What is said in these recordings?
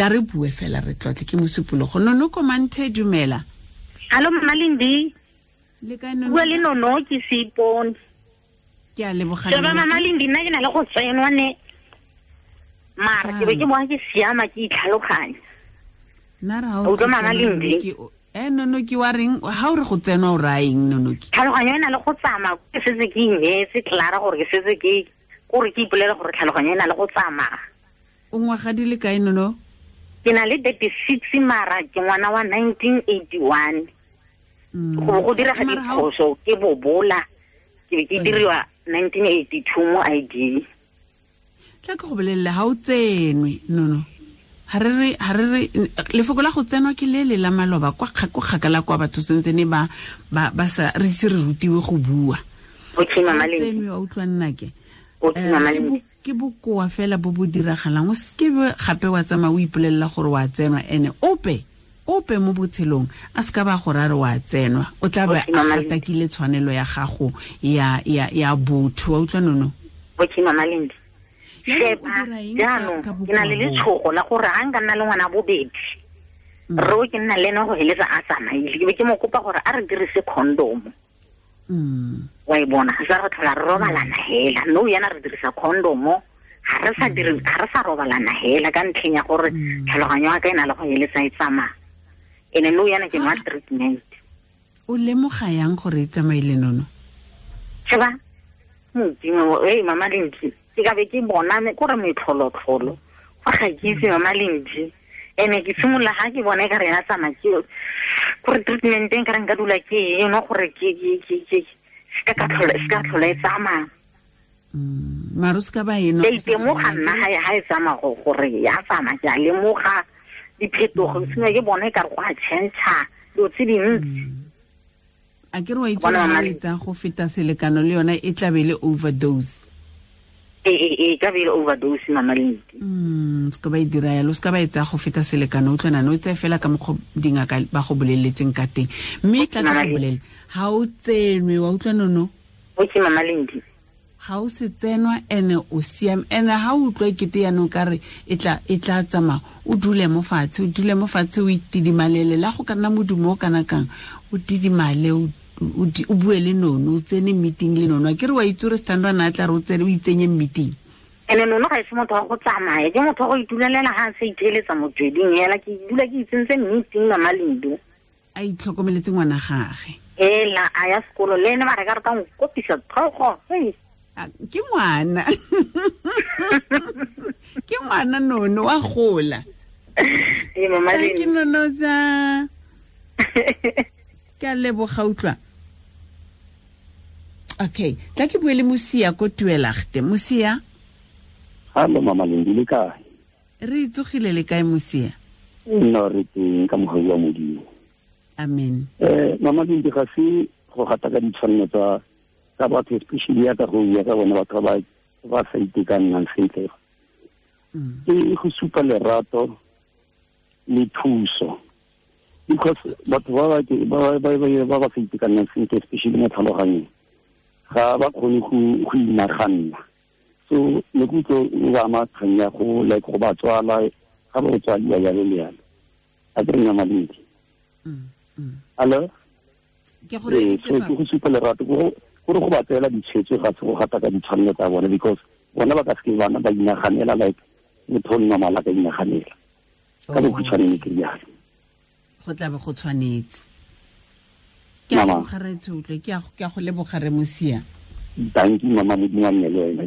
Tla re bue fela re tlotle ke mosupologo. Nono komanthe, dumela. Hallo Mama Lindi. Le kae Nono? Bua le Nono ke Seipone. Ke a leboga. Sheba Mama Lindi, nna ke na le go tsenwa ne. Mara ke be ke bona ke siama ke itlhaloganya. Nna re ha o Utlwa Mama Lindi. Nono ke wa reng ha o re go tsenwa o raya eng Nono ke? Tlhaloganyo e na le go tsamaya, ke setse ke ineetse Clara gore ke setse ke gore ke ipolele gore tlhaloganyo e na le go tsamaya. O ngwaga di le kae Nono? Ke na le 36 mara ke ngwana wa 1981. Go go direga diphoso ke bobola ke be ke diriwa 1982 mo ID. Tla ke go bolelele ha o tsenwe Nono. Ha re re lefoko la go tsenwa ke le le la maloba kwa kgakala kwa batho sentse ne ba ba sa re se re rutiwe go bua. Okay Mama Lindi. Tsenwe wa utlwa nna ke. Okay Mama Lindi. Ke bokoa fela bo bo diragalang, o seke gape wa tsamaya o ipolelela gore wa tsenwa, ene ope mo botshelong a se ka ba gore a re wa tsenwa, o tla ba a gatakile tshwanelo ya gago ya botho. Wa utlwa Nono? Okay Mama Lindi. Sheba jaanong ke na le letshogo la gore ga nka nna le ngwana bobedi ro ke nna le ene go heletsa a tsamaile, ke be ke mo kopa gore a re dirise condom. Wa e bona, ga sa re tlhola re robalana hela, no yana re dirisa condom, ga re sa dire, ga re sa robalana hela ka ntlheng ya gore tlhaloganyo ya ka e na le go heletsa e tsamaya. Ene no yana ke nwa treatment. O lemoga yang gore e tsamaile Nono? Sheba Modimo, Mama Lindi, ke ka be ke bona kore metlholotlholo fa ga ke itse Mama Lindi. Ene ke simolola ga ke bona e ka re ya tsamaya ke gore treatment e nka re nka dula ke e no gore ke se ka tlhola e tsamaya. Mara o se ka ba eno. Ke itemoga nna ha e tsamaya gore ya tsamaya, ke a lemoga diphetogo, sengwe ke bona e ka re go a change dilo tse dintsi. A ke re wa itse gore e tsaya go feta selekano le yona e tla be le overdose. E ka be le overdose Mama Lindi. Se ka ba e dira yalo, se ka ba e tsaya go feta selekano, o utlwa nano, o tseye fela ka mokgwa dingaka ba go boleletseng ka teng. Mme tla ka go bolela, ha o tsenwe, wa utlwa Nono? Okay Mama Lindi. Ha o se tsenwa ene o siame, ene ha o utlwa ekete yaanong ka re e tla tsamaya, o dule mo fatshe, o itidimalele, la go ka nna modumo o kana kang, o didimale, o bue le Nono, o tsene meeting le Nono. A ke re wa itse gore Standwa na tla re o tsene o itsenye meeting. Ene Nono ga e se motho wa go tsamaya, ke motho wa go itulelela ga a sa itheeletsa motsweding hela, ke dula ke itsentse meeting Mama Lindi. A itlhokomeletse ngwana gage. Ela a ya sekolo le ene ba re ka re ka nkopisa tlhogo. Ke ngwana. Ke ngwana Nono wa gola. Ee Mama Lindi. Ke Nono sa. Ke a leboga utlwa. Okay, tla ke bue le Mosia ko Tuelagte. Mosia? Hallo Mama Lindi, le kae? Re tsogile le kae Mosia? Nna re teng ka mogau wa Modimo. Amen. Mama Lindi, ga se go gata ka ditshwanelo tsa batho, especially ya ka go bua ka bone batho ba sa itekanang sentle. Ke go supa lerato le thuso. Because batho ba ba sa itekanang sentle, especially mo tlhaloganyong, ga ba kgone go inaganna. So ne ke utlwe o ba ama kgang ya go like go ba tswala, ga ba tswaliwa jalo le jalo. A ke re Mama Lindi. Hello? Ke go reeditse so ke go supa lerato gore go ba tseela ditshwetso ga se go gata ka ditshwanelo tsa bone, because bona ba ka seke bana ba inaganela like motho o normal a ka inaganela. Ka bokhutshwane ne ke rialo. Go tla be go tshwanetse. Ke a leboga re tshotlwe, ke a go leboga re Mosia. Dankie Mama, Modimo a nne le wena.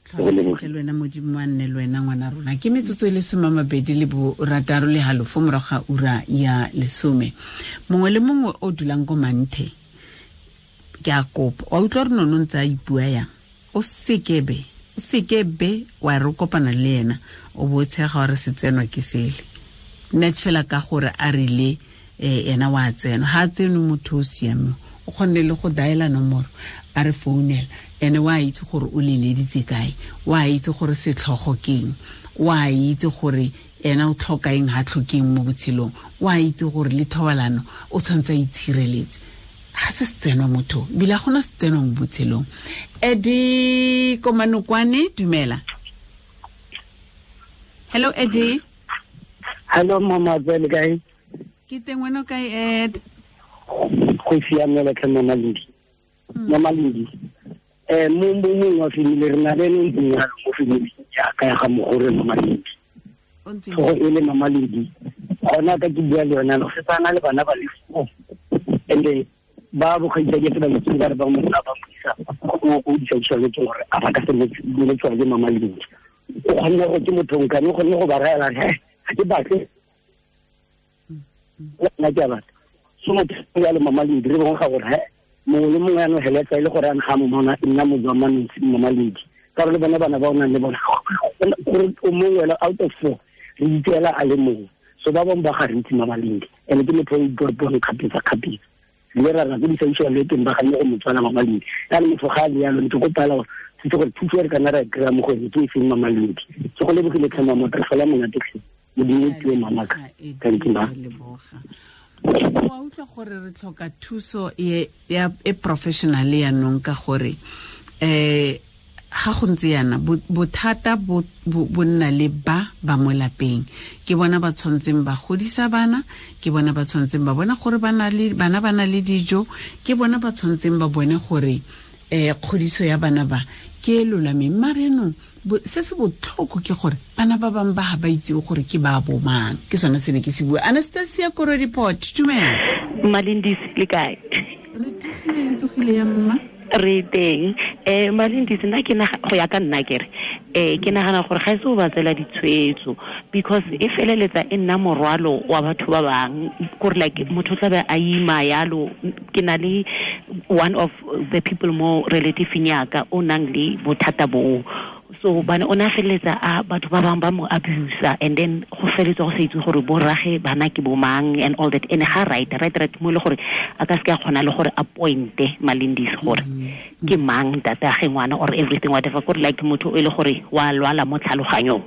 Tlhola le wena, Modimo a nne le wena ngwana rona. Ke metsotso e le 26:30 morago ga ura ya 10. Mongwe le mongwe o dulang ko Manthe, ke a kopa. Wa utlwa re Nono ntse a ipua yang? O sekebe wa re kopana le ena, o bo tshega gore se tsenwa ke sele. Net fela ka gore a rile ena wa tsenwa, ha tsenwe motho o siame, o kgonne le go diala nomoro a re founela, ene wa itse gore o leleditse kae, wa itse gore setlhogo keng, wa itse gore ena o tlhoka eng ha tlhokeng mo botshelong, wa itse gore le thobalano o tshwanetse a itshireletse. Ga se setsenwa motho, ebile ga gona setsenwa mo botshelong. Eddie Komanokwane, dumela. Hello Eddie. Hello mama, le kae? Ke teng, wena o kae, Ed? Go siamela tlhe mama Lindi. Mama Lindi, mo mongwe wa family re na le ene ntseng yalo mo family jaaka ya ga mogore mama Lindi. Tlhogo e le mama Lindi. Gona ka ke bua le yona go setse a na le bana ba le 4. And ba bokgaitsadi ke ba itse ba re ba mo ba mo isa go di social ke gore a ba ka se mo tswa le mama Lindi. O kgonne go ke motho nkane o kgonne go ba raela he ga ke batle nna ke a batla. So motho ya le mama Lindi re bongwe ga gore he mongwe le mongwe ya no heletsa e le gore a ga mo mona nna mo jwa mama Lindi. Ka re le bona bana ba o nang le bona gore o mongwe wela out of 4 re itseela a le mongwe. So ba bangwe ba ga re itse mama Lindi and ke motho o ipuang kgapetsa. Le ra ra go di social le teng ba ganne go motswana mama Lindi. Ya le motho ga le yalo ntse go pala gore se gore thuso re kana ra kry-a mo go ene ke e feng mama Lindi. So go lebogile tlhe mama re fela monate tlhe. Modimo o tue mama ka. Thank you ma. Wa utlwa gore re tlhoka thuso e e professional ya nong ka gore ga go ntse yana bothata bo nna le ba mo lapeng. Ke bona ba tshwantseng ba godisa bana, ke bona ba tshwantseng ba bona gore bana ba na le dijo, ke bona ba tshwantseng ba bone gore kgodiso ya bana ba ke e lolameng. Mare no se se botlhoko ke gore bana ba bangwe ba ga ba itse gore ke ba bomang. Ke sone se ne ke se bua. Anastasia Koro report, dumela. Malindisi le kae? Re tsogile, le tsogile ya mma. Re teng. Malindisi nna ke go ya ka nna kere ke nagana gore ga e se o ba tsela ditshwetso because e feleletsa e nna morwalo wa batho ba bang gore like motho tla be a ima yalo. Ke na le one of the people mo relative yaka o nang le bothata boo. So bana o na feleletsa a batho ba bang ba mo abuse and then go feletsa go se itse gore bo rage bana ke bo mang and all that. And ga right mo le gore a ka se ka kgona le gore appointe Malindisi gore ke mang tata ge ngwana or everything whatever gore like motho e le gore wa lwala mo tlhaloganyong.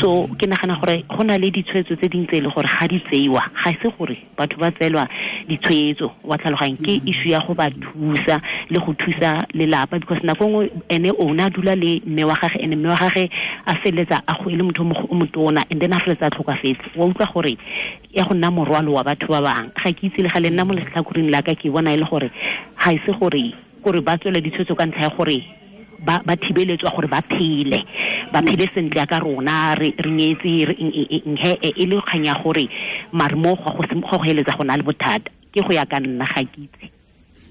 So ke nagana gore go na le ditshwetso tse dingwe tse e le gore ga di tseiwa ga se gore batho ba tseelwa ditshwetso wa tlhaloganyong ke issue ya go ba thusa le go thusa lelapa because nako nngwe ene o na dula le mme wa gage ene mme wa gage a feleletsa a go e le motho o motona and then a feleletsa a tlhokafetse. Wa utlwa gore ya go nna morwalo wa batho ba bangwe. Ga ke itse le ga le nna mo letlhakoreng la ka ke bona e le gore ga e se gore ba tswele ditshwetso ka ntlha ya gore ba thibeletswa gore ba phele sentle ka rona re nyetse re e le kgang ya gore mare mo go heletsa go na le bothata. Ke go ya ka nna ga ke itse.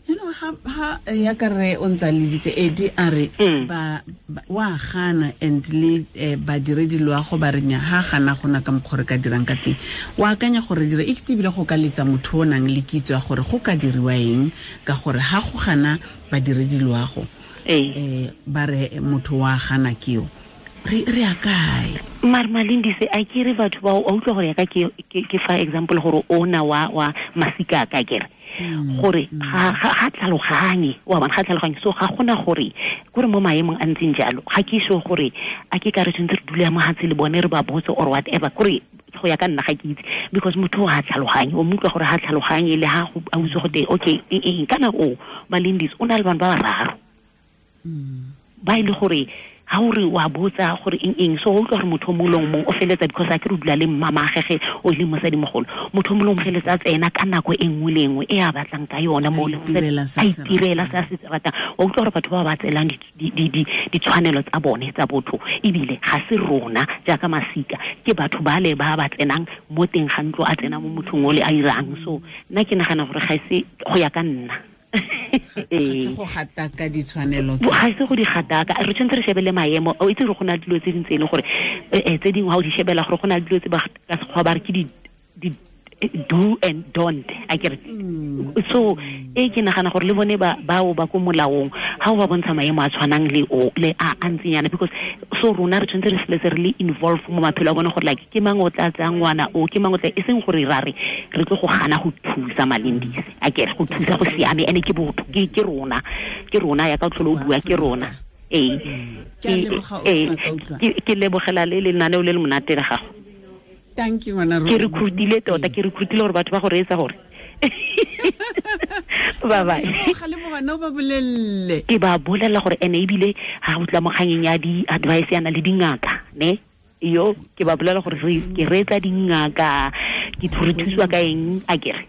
Ha ya ka re o ntsa leditse Edi a re ba wa gana and le badiredi loago ba re nya ha gana gona ka mokgwa re ka dirang ka teng. Wa akanya gore dire e ketebile go ka letsa motho o nang le kitso ya gore go ka diriwa eng ka gore ha go gana badiredi loago ba re motho wa gana keo re a kae? Mare Malindisi a ke re batho ba o utlwa gore ya ka ke fa example gore ona wa masika ka kere gore ga tlhaloganye wa bona ga tlhaloganye. So ga gona gore kore mo maemong a ntseng jalo ga ke sure gore a ke ka re tshwanetse re dule mo hatshe le bone re ba botse or whatever kore go ya ka nna ga ke itse because motho ga tlhaloganye o mo utlwa gore ga tlhaloganye le ha a utse go te okay eng kana o Malindisi o na le bana ba bararo ba ile gore ha o re wa botsa gore eng so o utlwa gore motho molong mong o feletsa because a ke re dula le mama gege o le mosadi mogolo motho molong feletsa tsena ka nako e nngwe le nngwe e a batlang ka yona mo le a itirela se a se ratang. O utlwa gore batho ba ba tselang ditshwanelo tsa bone tsa botho ebile ga se rona jaaka masika ke batho ba le ba ba tsenang mo teng ga ntlo a tsena mo mothong o le a irang. So nna ke nagana gore ga se go ya ka nna ga se go gataka ditshwanelo ga se go di gataka re tshwanetse re shebele maemo o itse gore go na le dilo tse dintse e leng gore tse dingwe ga o di shebela gore go na le dilo tse ba ka sekgwa ba re ke di do and don't a ke re. So e ke nagana gore le bone ba bao ba ko molaong ga o ba bontsha maemo a tshwanang le o le a ntseng yana because so rona re tshwanetse re seletse re le involve mo maphelo a bone gore like ke mang o tla tsayang ngwana o ke mang o tla e seng gore ra re re tlo go gana go thusa Malindisi a ke re go thusa go siame ene ke botho ke rona ya ka tlholo o bua ke rona. Ke lebogela le lenaneo le le monate la gago. Thank you ngwana rona. Ke recruitile tota, ke recruitile gore batho ba go reetsa gore. Bye bye. Ga le mogana ba bolelle. Ke ba bolela gore ene ebile ha o tla mo kganyeng ya di advice yana le dingaka, ne? Yo ke ba bolela gore ke reetsa dingaka ke re thusiwa ka eng a kere.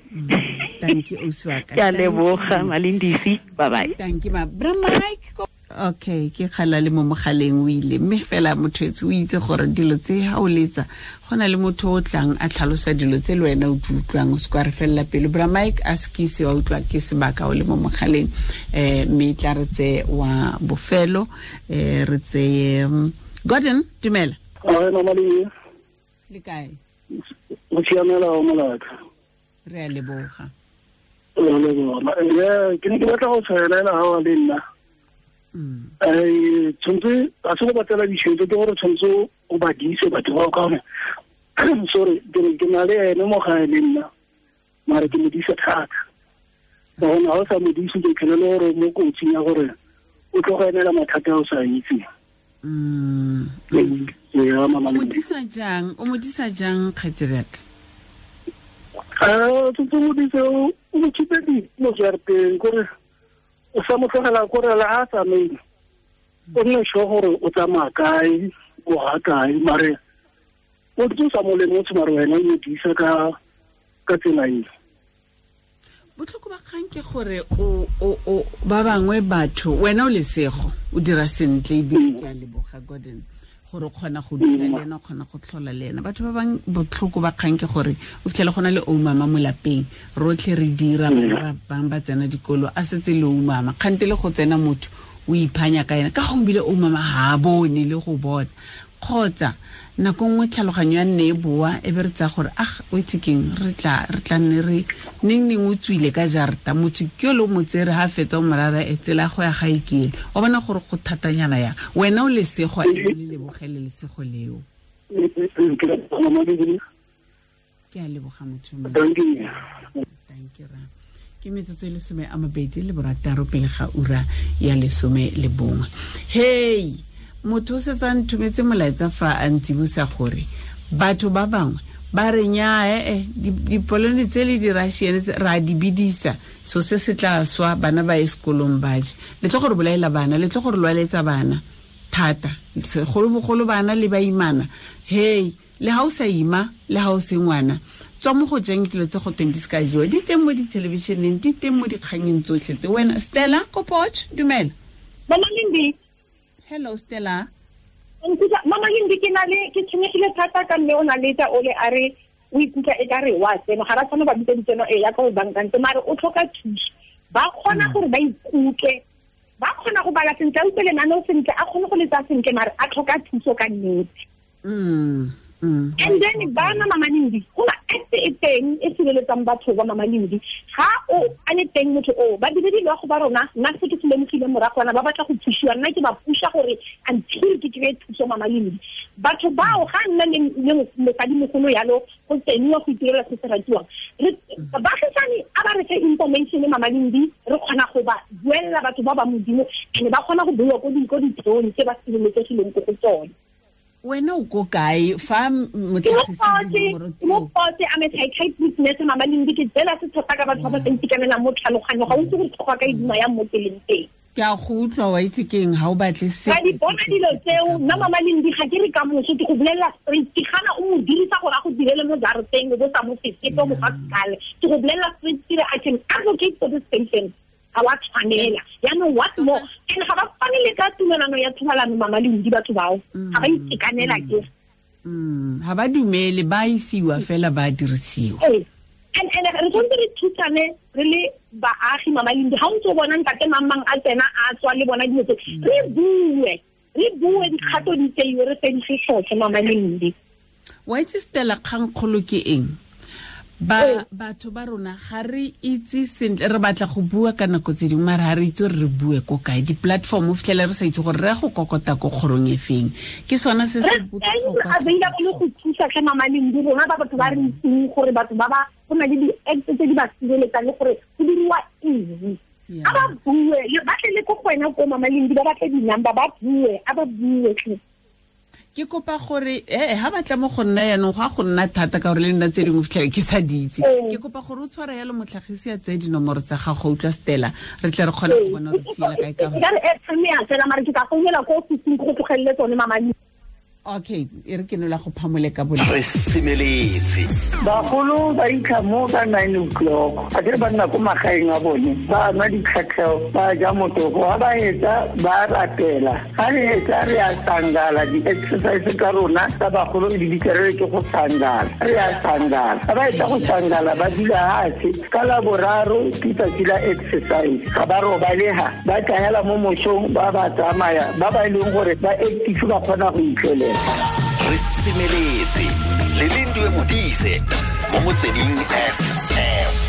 Thank you Uswaka. Ke a leboga Malindisi, bye bye. Thank you ma. Bra Mike. Okay, ke kgala le mo mogaleng o ile mme fela motho etse o itse gore dilo tse ha o letsa go na le motho o tlang a tlhalosa dilo tse le wena o di utlwang o se kwa re felela pelo. Bra Mike a sekise wa utlwa ke sebaka o le mo mogaleng mme tla re tse wa bofelo re tseye Gordon, dumela. Ae mama le. Le kae? O siamela o molaka. Re a leboga. Re a leboga. Ke ne ke batla go tshwaelela ha wa le nna. Tshwanetse a se go batlela ditšhelete ke gore tshwanetse o ba dise batho bao ka gore sorry ke na le ene mo gae le nna mare ke mo disa thata. Ka gonne ga o sa mo dise ke tlhele le gore mo kotsing ya gore o tlo go emela mathata a o sa itseng. O mo disa jang kgaitsediaka? Tshwanetse o modise o mo khipe mo jarateng kore o sa mo tlogela kore le ha tsamaile o nne sure gore o tsamaya kae o ga kae mare o ntse o sa mo lemotshe mare wena o mo disa ka tsela eo. Botlhoko ba kgang ke gore o ba bangwe batho wena o lesego o dira sentle ebile ke a leboga Gordon gore o kgona go dula le ena o kgona go tlhola le ena. Batho ba bangwe botlhoko ba kgang ke gore o fitlhele go na le oumama mo lapeng rotlhe re dira bana ba bangwe ba tsena dikolo a setse le oumama kgante le go tsena motho o iphanya ka ena ka gongwe ebile oumama ga a bone le go bona kgotsa nako nngwe tlhaloganyo ya nne e boa e be re tsaya gore ah o itse keng re tla nne re neng o tswile ka jarta motho ke yo le o mo tsere ga fetsa o morara e tsela go ya ga e kele o bona gore go thatanyana yang wena o lesego e le lebogele lesego leo. Ke a leboga motho. Thank you ra. Ke metsotso e 26 pele ga ura ya 11. Hey motho o setse a nthometse molaetsa fa a ntsibusa gore batho ba bangwe ba re nyaa dipolone tse le di-Russian ra di bidisa so se se tla swa bana ba ye sekolong ba je le tlo gore bolaela bana le tlo gore lwaletsa bana thata segolobogolo bana le ba imana. Hey le ha o sa ima le ha o se ngwana tswa mo go jeng dilo tse go teng di se ka jewa di teng mo dithelebišeneng di teng mo dikganyeng tsotlhe tse. Wena Stella Kopoch, dumela. Mama Lindi. Hello Stella. Mama Lindi ke na le ke tshwenyegile thata ka mme o na le tsa ole a re o ikutlwa e ka re wa tseno ga ra tshwana ba bitsa ditseno e ya ka o bankantse mare o tlhoka thuso. Ba kgona gore ba ikutlwe ba kgona go bala sentle a utlwe lenaneo sentle a kgone go letsa sentle mare a tlhoka thuso ka nnete. And then bana Mama Lindi go na act e teng e sireletsang batho ba Mama Lindi ga o a le teng motho o ba dire dilo go ba rona nna se ke se lemogile moragwana ba batla go thusiwa nna ke ba pusha gore until ke kry thuso Mama Lindi. Batho bao ga nna le mosadimogolo yalo go tseniwa go itirela se se ratiwang baagisane a ba re fe information Mama Lindi re kgona go ba buelela batho ba ba modimo and ba kgona go bua ko ditheong tse ba sireletsegileng ko go tsone. Wena o ko kae fa motlhagisi mo potse a psychiatrist nurse Mama Lindi ke tsela se thata ka batho ba ba sa itekanelang mo tlhaloganyo ga o itse gore tlhogo ka e duma yang mo tseleng teng. Ke a go utlwa wa itse keng ga o batle se ka di bona dilo tseo nna Mama Lindi ga ke re ka moso ke go bolelela straight ke gana o mo dirisa gore a go direle mo jarateng o bo sa mo sesepe mo fa sekale ke go bolelela straight ke re I can advocate for this patient ga wa tshwanela yaanong what more and ga ba fane le ka tumelano ya thobalano Mama Lindi batho bao ga ba itekanela ke ga ba dumele ba isiwa fela ba dirisiwa. And re tshwanetse re thusane re le baagi Mama Lindi ga o ntse o bona ntate mang a tsena a tswa le bona dilo tse re bue dikgato di tseiwe re fedise sotlhe Mama Lindi. Wa itse Stella kgangkgolo ke eng? Ba batho ba rona ga re itse sentle re batla go bua ka nako tse dingwe mare ga re itse gore re bue ko kae di-platform o fitlhele re sa itse gore re ya go kokota ko kgorong e feng ke sona se se botlhokwa available go thusa tlhe Mama Lindi rona ba batho ba re itseng gore batho ba ba go na le di-act tse di ba sireletsang le gore go diriwa eng a ba bue ba tle le ko go wena ko Mama Lindi ba batle di-number ba bue a ba bue tlhe. Ke kopa gore ha batla mo go nna yanong go a go nna thata ka gore le nna tse dingwe fitlhele ke sa di itse. Ke kopa gore o tshware yalo motlhagisi a tseye dinomoro tsa gago utlwa Stella re tle re kgone go bona re siela kae ka gore. Ke ka re airtime ya fela mare ke ka founela ko ofising go tlogelele tsone Mama Lindi. Okay, e re ke nola go phamole ka bone. Re semeletse. Bagolo ba itlha mo ka 9 o'clock. A kere ba nna ko magaeng a bone. Ba nwa ditlhatlheo, ba ja motoko. Ha ba etsa, ba rapela. Ha re etsa re a sangala, di-exercise tsa rona tsa bagolo di bitsa re ke go sangala. Re a sangala. Ha ba etsa go sangala, ba dula hatshe. Ka la boraro ke tsatsi la exercise. Ga ba robaleha, ba tlahela mo mosong, ba ba tsamaya, ba ba e leng gore ba active ba kgona go itlelela. Re semeletse le Lindiwe Modise mo Motsweding FM.